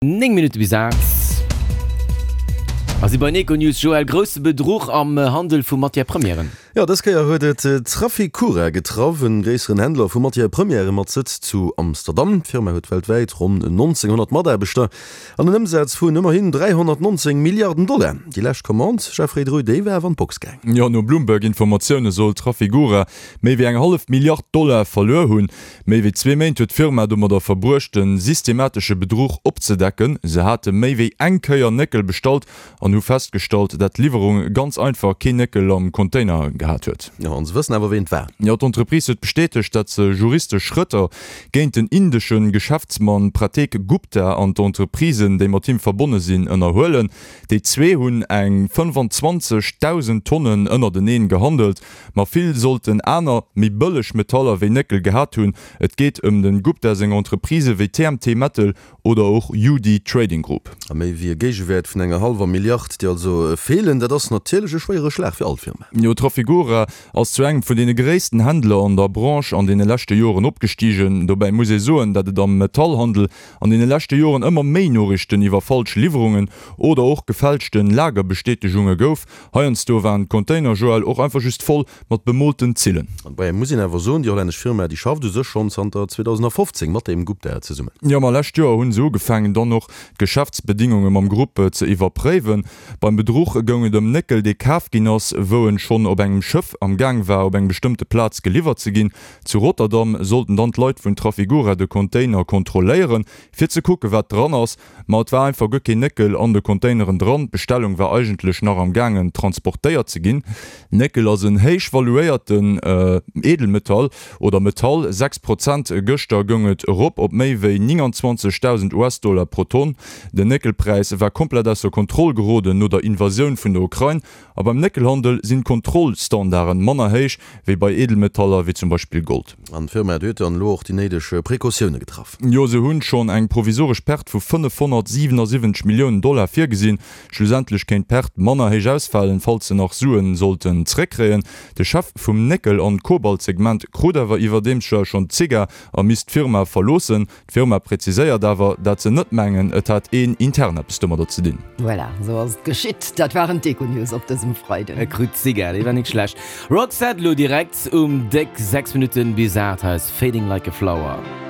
9 Minutte bis 8 a si bei Econews. Joël, grousse Bedruch am Handel vu Matières Premièren. Jo, dës Kéier huet et Trafigura getraff, en gréisseren Händler vu Matières Premièren mat Sëtz zu Amsterdam. D'Firma huet weltwäit ronn 1.900 Mataarbechter an en Ëmsaz vun ëmmerhin 319 Milliarden Dollar. Déi lescht Commande, Jeffrey Dreu, déi war awer an d'Box gaang. Jo, no Bloomberg-Informatioune soll Trafigura méi wéi eng hallef Milliard Dollar verluer hunn. Méi wéi zwee Méint huet d'Firma domadder verbruecht, de systematesche Bedruch opzedecken. Se hate méi wéi eng Kéier Néckel bestallt an hu festgestallt, dat d'Liwwerung ganz einfach keen Néckel am Container gehat huet. Jo, an se wëssen awer, ween et war. Jo, d'Entreprise huet bestätegt, dat se juristesch Schrëtter géint den indesche Geschäftsmann Prateek Gupta an d'Entreprisen, déi mat him verbonne sinn, ënnerhuelen. Déi zwee hunn eng 25.000 Tonnen ënnerteneen gehandelt. Ma vill sollten aner, méi bëlleg Metaller wéi Néckel gehat hunn. Et geet ëm den Gupta seng Entreprisë wéi TMT Metal oder och UD Trading Group. A méi wéi e Géigewäert vun enger hallwer Milliard, déi also feelen. Dat ass natierlech e schwéiere Schlag fir all Firma. Jo, Trafigura ass zu engem vun deene gréissten Händler an der Branche an deene leschte Joren opgestigen. Dobäi muss ee soen, dat et am Metallhandel an deene leschte Joren ëmmer méi Noriichten iwwer falsch Liwwerungen oder och gefälschte Lagerbestätegunge gouf. Heiansdo waren d'Container, Joël, och einfach just voll mat bemoolten Zillen. An dobäi muss een awer soen, déi hollännesch Firma, déi schafft u sech schonn zanter 2015 mat dem Gupta zesummen. Jo, ma lescht Joer hu se ugefaangen, dann och d'Geschäftsbedingunge mam Grupp ze iwwerpréiwen. Beim Bedruch goung et ëm Néckel, dee kaf ginn ass, wou en schonn op engem Schëff am Gaang war, op eng bestëmmte Plaz geliwwert ze ginn. Zu Rotterdam sollten dann d'Leit vun Trafigura de Container kontrolléieren, fir ze kucken, wat dran ass. Ma et war einfach guer keen Néckel an de Containeren dran. D'Bestellung war eigentlech nach am gaangen transportéiert ze ginn. Néckel ass en héich valuéierten Edelmetall oder Metall. 6 Prozent gëschter goung et erop op méi wéi 29.000 US-Dollar pro Tonn. Den Néckelpräis war komplett ausser Kontroll geroden no der Invasioun vun der Ukrain. A beim Néckelhandel sinn d'Kontrollstandarden manner héich wéi bei Edelmetaller wéi zum Beispill Gold. An d'Firma huet dann elo och déi néideg Precautioune getraff. Jo, se hunn schonn eng provisoresch Perte vu 577 Milliounen Dollar virgesinn. Schlussendlech kéint d'Perte manner héich ausfalen, falls se nach Suen sollten zréckkréien. De Chef vum Néckel an Kobaltsegment krut awer iwwerdeems schonn d'Zigar a misst d'Firma verloossen. D'Firma präziséiert awer, dat se net mengen, et hätt een intern eppes domadder ze dinn. Voilà, esou ass et geschitt. Dat waren d'Econews op dësem Freiden. E krut d'Zigar, dee war nik schlecht. Roxette lo direkt um déck 6 Minutten bis 8 hei ass Fading Like a Flower.